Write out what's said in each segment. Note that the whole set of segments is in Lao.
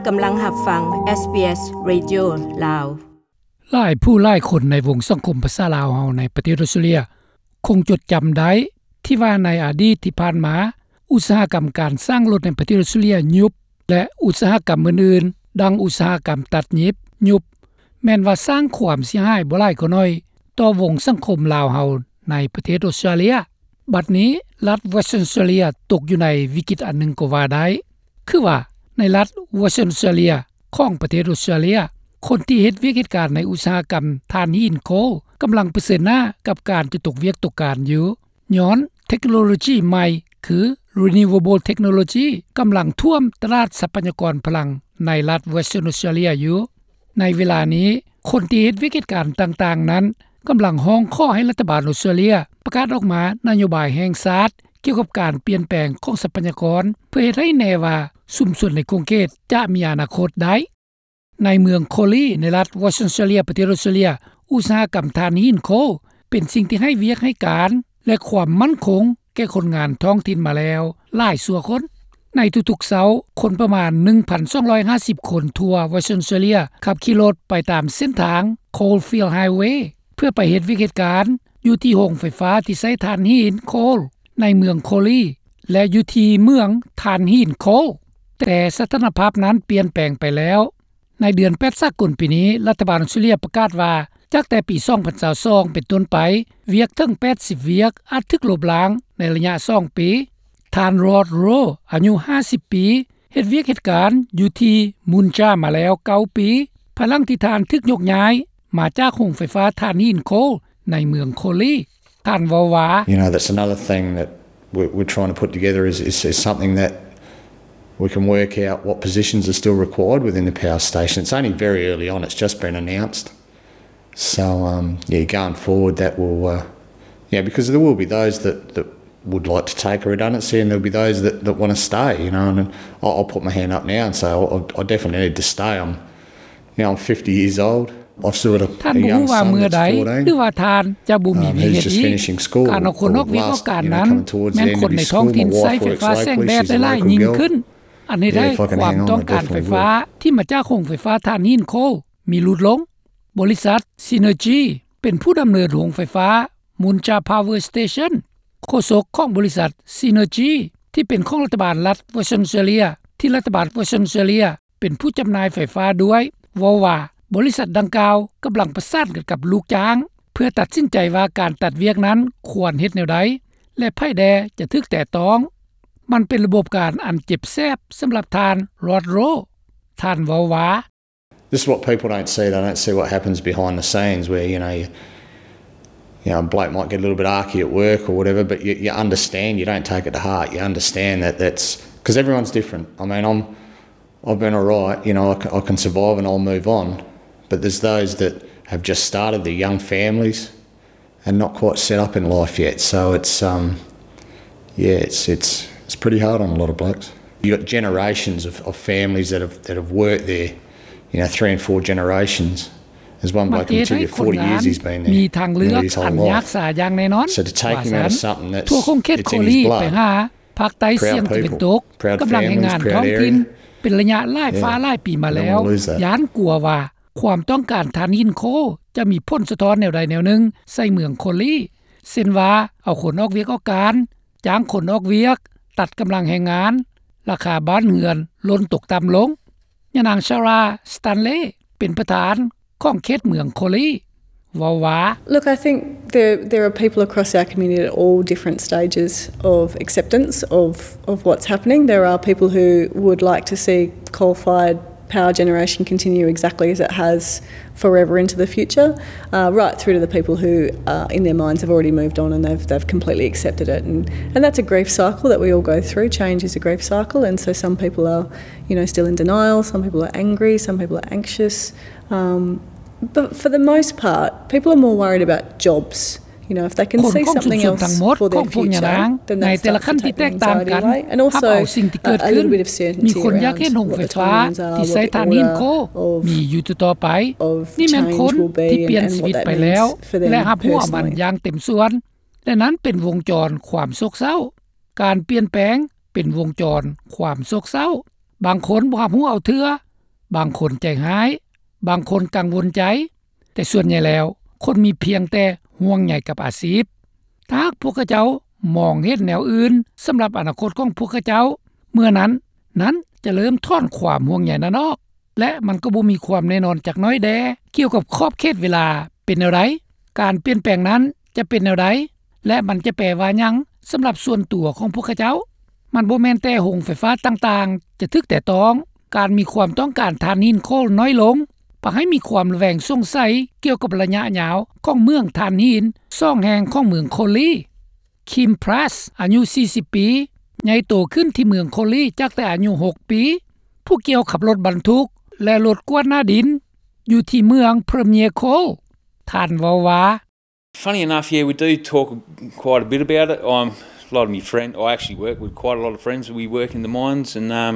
ກຳລັງຮັບຟັງ ເອສບີເອສ ເຣດິໂອ ລາວ. ຫຼາຍຜູ້ຫຼາຍຄົນໃນວົງສັງຄົມພາສາລາວເຮົາໃນປະເທດອອສເຕຣເລັຽ ຄົງຈົດຈຳໄດ້ທີ່ວ່າໃນອະດີດທີ່ຜ່ານມາ ອຸດສາຫະກຳການສ້າງລົດໃນປະເທດອອສເຕຣເລັຽຍຸບ ແລະ ອຸດສາຫະກຳອື່ນໆ ດັ່ງອຸດສາຫະກຳຕັດຫຍິບຍຸບ ແມ່ນວ່າສ້າງຄວາມເສຍຫາຍບໍ່ຫຼາຍກໍໜ້ອຍຕໍ່ວົງສັງຄົມລາວເຮົາໃນປະເທດອອສເຕຣເລັຽ. ບັດນີ້ລັດ Western Australia ຕົກຢູ່ໃນວິກິດອັນໜຶ່ງກໍວ່າໄດ້. ຄືວ່າໃນລັດ Western Australia ຂອງປະເທດອອສເຕຣເລັຽ ຄົນທີ່ເຮັດວຽກເຮັດການໃນອຸດສາຫະກຳຖ່ານຫີນໂຄລ ກຳລັງປະເຊີນໜ້າກັບການຈະຕົກວຽກຕົກການຢູ່ ຍ້ອນເທັກໂນໂລຈີໃໝ່ ຄື Renewable Technology ກຳລັງຖ້ວມຕະຫຼາດຊັບພະຍາກອນພະລັງໃນລັດ Western Australia ຢູ່. ໃນເວລານີ້ ຄົນທີ່ເຮັດວຽກເຮັດການຕ່າງໆນັ້ນ ກຳລັງຮ້ອງຂໍໃຫ້ລັດຖະບານອອສເຕຣເລັຽປະກາດອອກມານະໂຍບາຍແຫ່ງຊາດ ກ່ຽວກັບການປ່ຽນແປງຂອງຊັບພະຍາກອນ ເພື່ອເຮັດໃຫ້ແນ່ວ່າຊຸມຊົນໃນຂົງເຂດຈະມີອະນາຄົດໄດ້. ໃນເມືອງໂຄລີ ໃນລັດ Western Australia ປະເທດອອສເຕຣເລັຽ ອຸດສາຫະກຳຖ່ານຫີນໂຄລ ເປັນສິ່ງທີ່ໃຫ້ວຽກໃຫ້ການ ແລະ ຄວາມໝັ້ນຄົງແກ່ຄົນງານທ້ອງຖິ່ນມາແລ້ວຫຼາຍຊົ່ວຄົນ. ໃນທຸກໆເຊົ້າ, ຄົນປະມານໜຶ່ງພັນສອງຮ້ອຍຫ້າສິບຄົນທົ່ວ Western Australia ຂັບຂີ່ລົດໄປຕາມເສັ້ນທາງ Coalfield Highway ເພື່ອໄປເຮັດວຽກເຮັດການຢູ່ທີ່ໂຮງໄຟຟ້າທີ່ໃຊ້ຖ່ານຫີນໂຄລໃນເມືອງໂຄລີ ແລະ ຢູ່ທີ່ເມືອງຖ່ານຫີນໂຄລ, ແຕ່ສະຖານະພາບນັ້ນປ່ຽນແປງໄປແລ້ວ. ໃນເດືອນແປດສາກົນປີນີ້, ລັດຖະບານອອສເຕຣເລັຽປະກາດວ່າ ຈາກແຕ່ປີສອງພັນຊາວສອງເປັນຕົ້ນໄປ, ວຽກເຖິງແປດສິບວຽກອາດຖືກລົບລ້າງໃນໄລຍະສອງປີ. ທ່ານ Rod Rowe ອາຍຸຫ້າສິບປີ, ເຮັດວຽກເຮັດການຢູ່ທີ່ມຸນຈາມາແລ້ວເກົ້າປີ, ພາຍຫຼັງທີ່ທ່ານຖືກຍົກຍ້າຍມາຈາກໂຮງໄຟຟ້າຖ່ານຫີນໂຄລໃນເມືອງໂຄລີ. ທ່ານເວົ້າວ່າ You know, that's another thing that we're, we're trying to put together is, is, is something that we can work out what positions are still required within the power station. It's only very early on, it's just been announced. So, um, yeah, going forward, that will, uh, yeah, because there will be those that, that would like to take a redundancy, and there'll be those that, that want to stay, you know, and I'll, I'll put my hand up now and say, I, I definitely need to stay. I'm, you know, I'm fifty years old. ທ່ານບໍ່ຮູ້ວ່າເມື່ອໃດ ຫຼືວ່າທ່ານຈະບໍ່ມີວຽກເຮັດອີກ. ການເອົາຄົນອອກວຽກອອກການນັ້ນ ແມ່ນຄົນໃນທ້ອງຖິ່ນໃຊ້ໄຟຟ້າແສງແດດໄດ້ຫຼາຍຍິ່ງຂຶ້ນ, ອັນເຮັດໃຫ້ຄວາມຕ້ອງການໄຟຟ້າທີ່ມາຈາກໂຮງໄຟຟ້າຖ່ານຫີນໂຄລມີຫຼຸດລົງ. ບໍລິສັດ Synergy ເປັນຜູ້ດຳເນີນໂຮງໄຟຟ້າ Muncha Power Station. ໂຄສົກຂອງບໍລິສັດ Synergy ທີ່ເປັນຂອງລັດຖະບານລັດ Western Australia ທີ່ລັດຖະບານ Western Australia ເປັນຜູ້ຈຳໜ່າຍໄຟຟ້າດ້ວຍ ເວົ້າວ່າ ບໍລິສັດດັ່ງກ່າວກຳລັງປະສານກັນກັບລູກຈ້າງ ເພື່ອຕັດສິນໃຈວ່າການຕັດວຽກນັ້ນຄວນເຮັດແນວໃດ ແລະ ໃຜແດ່ຈະຖືກແຕະຕ້ອງ. ມັນເປັນລະບົບການອັນເຈັບແສບສຳລັບທ່ານ Rod Rowe. ທ່ານເວົ້າວ່າ This is what people don't see. They don't see what happens behind the scenes where, you know, you, you know, a bloke might get a little bit arky at work or whatever, but you, you understand. You don't take it to heart. You understand that that's, 'cause everyone's different. I mean, I'm, I've been all right, you know, I can, I can survive and I'll move on. But there's those that have just started, they're young families and not quite set up in life yet. So it's, um, yeah, it's, it's, it's pretty hard on a lot of blokes. You got generations of, of families that have, that have worked there, you know, three and four generations. There's one bloke in Matilda, forty years he's been there, nearly his whole life. ມັນເຮັດໃຫ້ຄົນງານມີທາງເລືອກອັນຍາກສາຢ່າງແນ່ນອນ. So to take him out of something that's, it's in his blood, ວ່າຊັ້ນ. ທົ່ວຂົງເຂດໂຄລີໄປຫາ ພາກໃຕ້ສ່ຽງຕາເວັນຕົກ ກຳລັງແຮງງານທ້ອງຖິ່ນເປັນໄລຍະຫຼາຍຟ້າຫຼາຍປີມາແລ້ວ, ຢ້ານກົວວ່າຄວາມຕ້ອງການຖ່ານຫີນໂຄລຈະມີຜົນສະທ້ອນແນວໃດແນວໜຶ່ງໃສ່ເມືອງໂຄລີ ເຊັ່ນວ່າ ເອົາຄົນອອກວຽກອອກການ, ຈ້າງຄົນອອກວຽກ, ຕັດກຳລັງແຮງງານ, ລາຄາບ້ານເຮືອນຫຼົ່ນຕົກຕ່ຳລົງ. ຍານາງ Sarah Stanley ເປັນປະທານຂອງເຂດເມືອງໂຄລີ ເວົ້າວ່າ Look, I think there, there are people across our community at all different stages of acceptance of, of what's happening. There are people who would like to see coal-fired power generation continue exactly as it has forever into the future, uh, right through to the people who, uh, in their minds have already moved on and they've, they've completely accepted it. And, and that's a grief cycle that we all go through. Change is a grief cycle, and so some people are, you know, still in denial, some people are angry, some people are anxious. Um, but for the most part, people are more worried about jobs. You know, if they can see something else for their future, then that starts to take the anxiety away. And also, uh, a little bit of certainty around what the timelines are, what the order of change will be, and, and what that means for them personally. ຄົນຄົງຊຸມທັງໝົດ ຄົນພົງຢ່າງໜັກ ໃນແຕ່ລະຂັ້ນທີ່ແຕກຕ່າງກັນ ຮັບເອົາສິ່ງທີ່ເກີດຂຶ້ນ ມີຄົນຢາກເຫັນໂຮງໄຟຟ້າທີ່ໃຊ້ຖ່ານຫີນໂຄລມີຢູ່ຕໍ່ໆໄປ ນີ້ແມ່ນຄົນທີ່ປ່ຽນຊີວິດໄປແລ້ວ ແລະ ຮັບຮູ້ເອົາມັນຢ່າງເຕັມສ່ວນ ແລະ ນັ້ນເປັນວົງຈອນຄວາມໂສກເສົ້າ. ການປ່ຽນແປງເປັນວົງຈອນຄວາມໂສກເສົ້າ. ບາງຄົນບໍ່ຮັບຮູ້ເອົາເທື່ອ ບາງຄົນໃຈຮ້າຍ, ບາງຄົນກັງວົນໃຈ, ແຕ່ສ່ວນໃຫຍ່ແລ້ວ ຄົນມີພຽງແຕ່ຫ່ວງໃຍກັບອາຊີບ. ຖ້າຫາກພວກເຂົາເຈົ້າມອງເຫັນແນວອື່ນສຳລັບອະນາຄົດຂອງພວກເຂົາເຈົ້າ, ເມື່ອນັ້ນ ນັ້ນຈະເລີ່ມຖອນຄວາມຫ່ວງໃຍນັ້ນອອກ ແລະ ມັນກໍບໍ່ມີຄວາມແນ່ນອນຈັກໜ້ອຍແດ່ ກ່ຽວກັບຂອບເຂດເວລາເປັນແນວໃດ, ການປ່ຽນແປງນັ້ນຈະເປັນແນວໃດ ແລະ ມັນຈະແປວ່າຫຍັງສຳລັບສ່ວນຕົວຂອງພວກເຂົາເຈົ້າ. ມັນບໍ່ແມ່ນແຕ່ໂຮງໄຟຟ້າຕ່າງໆຈະຖືກແຕະຕ້ອງ, ການມີຄວາມຕ້ອງການຖ່ານຫີນໂຄລນ້ອຍລົງ ພາໃຫ້ມີຄວາມລະແວງສົງໄສກ່ຽວກັບໄລຍະຍາວຂອງເໝືອງຖ່ານຫີນສອງແຫ່ງຂອງເມືອງໂຄລີ. ຄິມ ພຣັສ ອາຍຸສີ່ສິບປີ, ໃຫຍ່ໂຕຂຶ້ນທີ່ເມືອງໂຄລີຈາກແຕ່ອາຍຸຫົກປີ, ຜູ້ກ່ຽວຂັບລົດບັນທຸກ ແລະ ລົດກວາດໜ້າດິນ ຢູ່ທີ່ເມືອງ Premier Coal. ທ່ານເວົ້າວ່າ, Funny enough, yeah, we do talk quite a bit about it. Um, a lot of my friend, I actually work with quite a lot of friends. We work in the mines, and, um,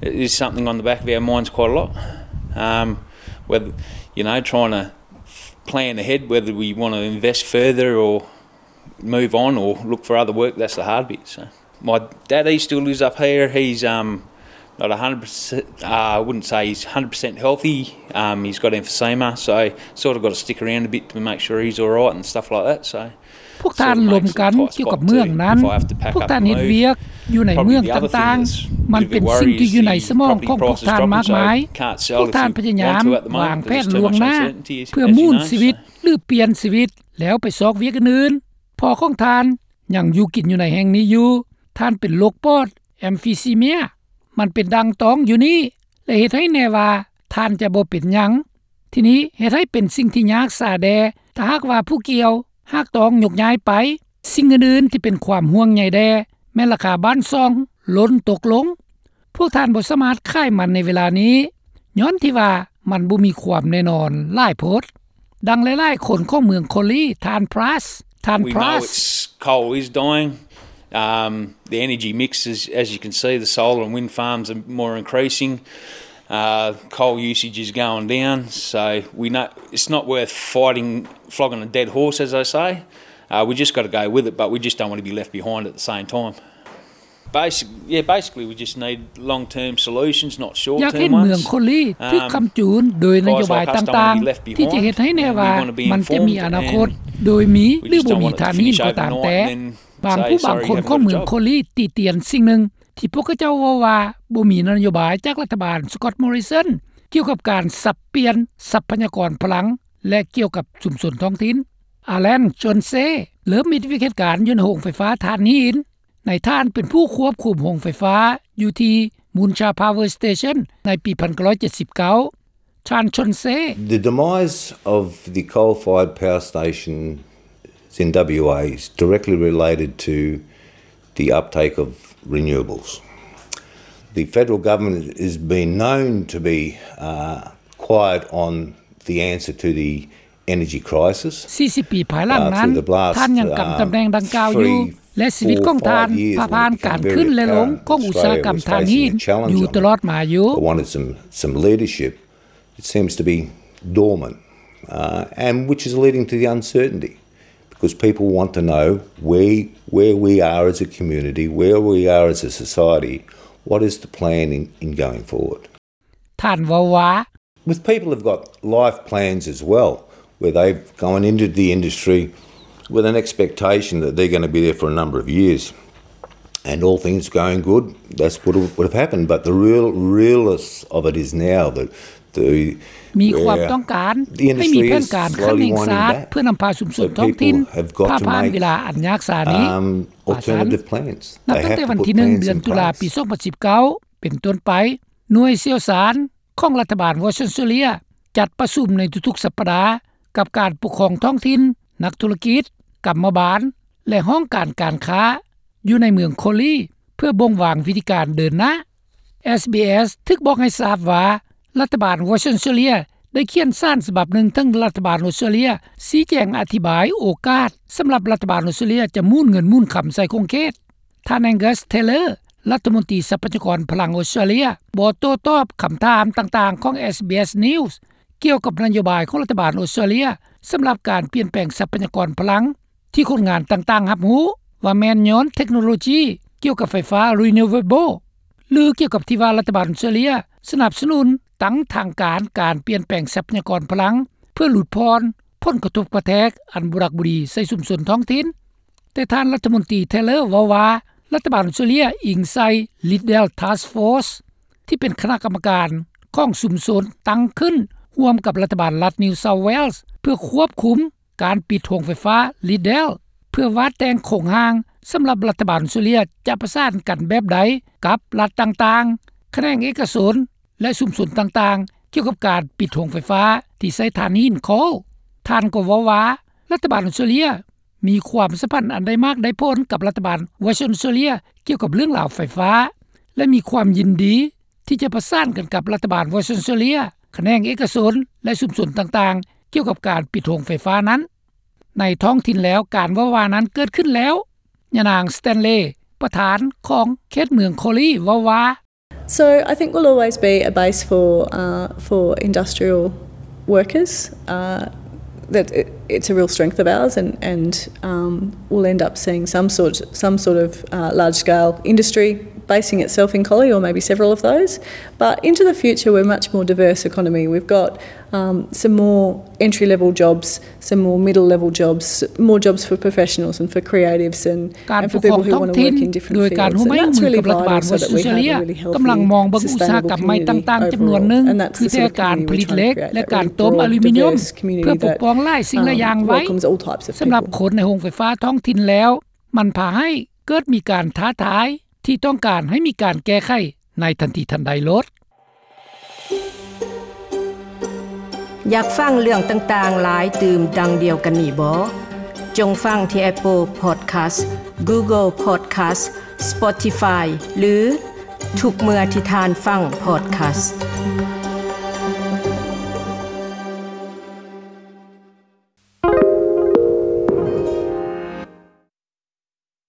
it is something on the back of our minds quite a lot. Um, whether, you know, trying to plan ahead, whether we wanna invest further or move on or look for other work, that's the hard bit. So my daddy still lives up here. He's, um, not a hundred percent, uh, I wouldn't say he's hundred percent healthy. Um, he's got emphysema, so sort of gotta stick around a bit to make sure he's all right and stuff like that. So ພວກທ່ານລົມກັນກ່ຽວກັບເມືອງນັ້ນ, ພວກທ່ານເຮັດວຽກຢູ່ໃນເມືອງຕ່າງໆ, ມັນເປັນສິ່ງທີ່ຢູ່ໃນສະໝອງຂອງພວກທ່ານມາກມາຍ. ພວກທ່ານພະຍາຍາມວາງແຜນລ່ວງໜ້າເພື່ອໝູນຊີວິດ ຫຼື ປ່ຽນຊີວິດ ແລ້ວໄປຊອກວຽກອື່ນໆ. ພໍ່ຂອງທ່ານຍັງຢູ່ກິນຢູ່ໃນແຫ່ງນີ້ຢູ່. ທ່ານເປັນໂລກປອດ emphysema. ມັນເປັນດັ່ງຕ້ອງຢູ່ນີ້ ແລະ ເຮັດໃຫ້ແນ່ວ່າທ່ານຈະບໍ່ເປັນຫຍັງ. ທີນີ້ເຮັດໃຫ້ເປັນສິ່ງທີ່ຍາກສາແດ່ ຖ້າຫາກວ່າຜູ້ກ່ຽວຫາກຕ້ອງຍົກຍ້າຍໄປ. ສິ່ງອື່ນໆທີ່ເປັນຄວາມຫ່ວງໃຍແດ່ ແມ່ນລາຄາບ້ານຊ່ອງລົ້ນຕົກລົງ. ພວກທ່ານບໍ່ສາມາດຂາຍມັນໃນເວລານີ້ ຍ້ອນທີ່ວ່າມັນບໍ່ມີຄວາມແນ່ນອນຫຼາຍໂພດ. ດັ່ງຫຼາຍໆຄົນຂອງເມືອງໂຄລີ, ທ່ານ Price, ທ່ານ We know Price. It's, coal is dying. Um, the energy mix is, as you can see, the solar and wind farms are more increasing. Uh, coal usage is going down, so we know it's not worth fighting, flogging a dead horse, as they say. Uh, we just gotta go with it, but we just don't wanna be left behind at the same time. Basic, yeah, basically we just need long-term solutions, not short-term ones. ຢາກເຫັນເມືອງໂຄລີຖືກຄ້ຳຈູນໂດຍນະໂຍບາຍຕ່າງໆ ທີ່ຈະເຮັດໃຫ້ແນ່ວ່າມັນຈະມີອະນາຄົດໂດຍມີ ຫຼື ບໍ່ມີຖ່ານຫີນກໍຕາມແຕ່. ບາງຜູ້ບາງຄົນຂອງເມືອງໂຄລີຕິຕຽນສິ່ງໜຶ່ງ ທີ່ພວກເຂົາເຈົ້າເວົ້າວ່າບໍ່ມີນະໂຍບາຍຈາກລັດຖະບານ Scott Morrison ກ່ຽວກັບການສັບປ່ຽນຊັບພະຍາກອນພະລັງ ແລະ ກ່ຽວກັບຊຸມຊົນທ້ອງຖິ່ນ. Alan Chauncey ເລີ່ມເຮັດວຽກເຮັດການຢູ່ໃນໂຮງໄຟຟ້າຖ່ານຫີນ. ນາຍທ່ານເປັນຜູ້ຄວບຄຸມໂຮງໄຟຟ້າຢູ່ທີ່ Muncha Power Station ໃນປີໜຶ່ງພັນເກົ້າຮ້ອຍເຈັດສິບເກົ້າ. ທ່ານ Chauncey. The demise of the coal-fired power station in W A is directly related to the uptake of renewables. The federal government has been known to be, uh, quiet on the answer to the energy crisis. ສີ່ສິບປີພາຍຫຼັງນັ້ນ ທ່ານຍັງກຳຕຳແໜ່ງດັ່ງກ່າວຢູ່ ແລະ ຊີວິດຂອງທ່ານຜ່າຜ່ານການຂຶ້ນ ແລະ ລົງຂອງອຸດສາຫະກຳຖ່ານຫີນຢູ່ຕະຫຼອດມາຢູ່. I wanted some, some leadership. It seems to be dormant, uh, and which is leading to the uncertainty, because people want to know where, where we are as a community, where we are as a society, what is the plan in, in going forward. ທ່ານເວົ້າວ່າ. With people who've got life plans as well, where they've gone into the industry with an expectation that they're gonna be there for a number of years, and all things going good, that's what would have happened. But the real, realness of it is now that the, ມີຄວາມຕ້ອງການໃຫ້ມີແຜນການຂັ້ນແຫ່ງຊາດ ເພື່ອນຳພາຊຸມຊົນທ້ອງຖິ່ນຜ່ານເວລາອັນຍາກສານີ້. ນັບຕັ້ງແຕ່ວັນທີໜຶ່ງ ເດືອນຕຸລາ ປີສອງພັນສິບເກົ້າ ເປັນຕົ້ນໄປ, ໜ່ວຍຊ່ຽວຊານ ຂອງລັດຖະບານວອສເຕຣເລຍ ຈັດປະຊຸມໃນທຸກໆສັບປະດາ ກັບການປົກຄອງທ້ອງຖິ່ນ, ນັກທຸລະກິດ, ກຳມະບານ ແລະ ຫ້ອງການການຄ້າ ຢູ່ໃນເມືອງໂຄລີ ເພື່ອບົ່ງວາງວິທີການເດີນໜ້າ. ເອສບີເອສ ຖືກບອກໃຫ້ຊາບວ່າ ລັດຖະບານວອສເຕຣເລຍ ໄດ້ຂຽນສານສະບັບໜຶ່ງເຖິງລັດຖະບານອອສເຕຣເລຍ ຊີ້ແຈງອະທິບາຍໂອກາດ ສຳລັບລັດຖະບານອອສເຕຣເລຍຈະໝູນເງິນໝູນຄຳໃສ່ຂົງເຂດ. ທ່ານ Angus Taylor ລັດຖະມົນຕີຊັບພະຍາກອນພະລັງອອສເຕຣເລຍ ບໍ່ໂຕ້ຕອບຄຳຖາມຕ່າງໆຂອງ ເອສບີເອສ News ກ່ຽວກັບນະໂຍບາຍຂອງລັດຖະບານອອສເຕຣເລຍ ສຳລັບການປ່ຽນແປງຊັບພະຍາກອນພະລັງ ທີ່ຄົນງານຕ່າງໆຮັບຮູ້ວ່າແມ່ນຍ້ອນເທັກໂນໂລຈີກ່ຽວກັບໄຟຟ້າ renewable ຫຼື ກ່ຽວກັບທີ່ວ່າລັດຖະບານອອສເຕຣເລຍສະໜັບສະໜູນ ຕັ້ງທາງການ ການປ່ຽນແປງຊັບພະຍາກອນພະລັງ ເພື່ອຫຼຸດຜ່ອນຜົນກະທົບກະແທກອັນບໍ່ຮັກບໍ່ດີໃສ່ຊຸມຊົນທ້ອງຖິ່ນ. ແຕ່ທ່ານລັດຖະມົນຕີ Taylor ເວົ້າວ່າ ລັດຖະບານອົດສະຕຣາເລຍອີງໃສ່ Liddell Task Force ທີ່ເປັນຄະນະກຳມະການຂອງຊຸມຊົນຕັ້ງຂຶ້ນຮ່ວມກັບລັດຖະບານລັດ New South Wales ເພື່ອຄວບຄຸມການປິດໂຮງໄຟຟ້າ Liddell ເພື່ອວາດແຕ່ງໂຄງຮ່າງສຳລັບລັດຖະບານອົດສະຕຣາເລຍຈະປະສານກັນແບບໃດກັບລັດຕ່າງໆ, ຂະແໜງເອກະຊົນ ແລະ ຊຸມຊົນຕ່າງໆ ກ່ຽວກັບການປິດໂຮງໄຟຟ້າທີ່ໃຊ້ຖ່ານຫີນໂຄລ. ທ່ານກໍເວົ້າວ່າ ລັດຖະບານອົດສະຕຣາເລຍມີຄວາມສຳພັນອັນໄດ້ມາກໄດ້ຜົນກັບລັດຖະບານ Western Australia ກ່ຽວກັບເລື່ອງລາວໄຟຟ້າ ແລະ ມີຄວາມຍິນດີທີ່ຈະປະສານກັນກັບລັດຖະບານ Western Australia, ຂະແໜງເອກະຊົນ ແລະ ຊຸມຊົນຕ່າງໆ ກ່ຽວກັບການປິດໂຮງໄຟຟ້ານັ້ນ. ໃນທ້ອງຖິ່ນແລ້ວ ການເວົ້າວ່ານັ້ນເກີດຂຶ້ນແລ້ວ. ຍານາງ Stanley, ປະທານຂອງເຂດເມືອງ Collie ເວົ້າວ່າ So I think we'll always be a base for uh, for industrial workers. Uh, that it, it's a real strength of ours, and and um, we'll end up seeing some sort some sort of uh, large scale industry basing itself in Collie, or maybe several of those. But into the future, we're a much more diverse economy. We've got um, some more entry level jobs, some more middle level jobs, more jobs for professionals and for creatives and ການປົກຄອງທ້ອງຖິ່ນໂດຍການຮ່ວມມືກັບລັດຖະບານວອສເຕຣເລຍ ກຳລັງມອງເບິ່ງອຸດສາຫະກຳໃໝ່ຕ່າງໆຈຳນວນໜຶ່ງ ຄືແຕ່ການຜະລິດເຫຼັກ ແລະ ການຕົ້ມອາລູມີນຽມ ເພື່ອປົກປ້ອງຫຼາຍສິ່ງຫຼາຍຢ່າງໄວ້. ສຳລັບຄົນໃນໂຮງໄຟຟ້າທ້ອງຖິ່ນແລ້ວ ມັນພາໃຫ້ເກີດມີການທ້າທາຍທີ່ຕ້ອງການໃຫ້ມີການແກ້ໄຂໃນທັນທີທັນໃດໂລດ. ຢາກຟັງເລື່ອງຕ່າງໆຫຼາຍຕື່ມດັ່ງດຽວກັນນີ້ບໍ? ຈົ່ງຟັງທີ່ Apple Podcast, Google Podcast, Spotify ຫຼື ທຸກເມື່ອທີ່ທ່ານຟັງ Podcast.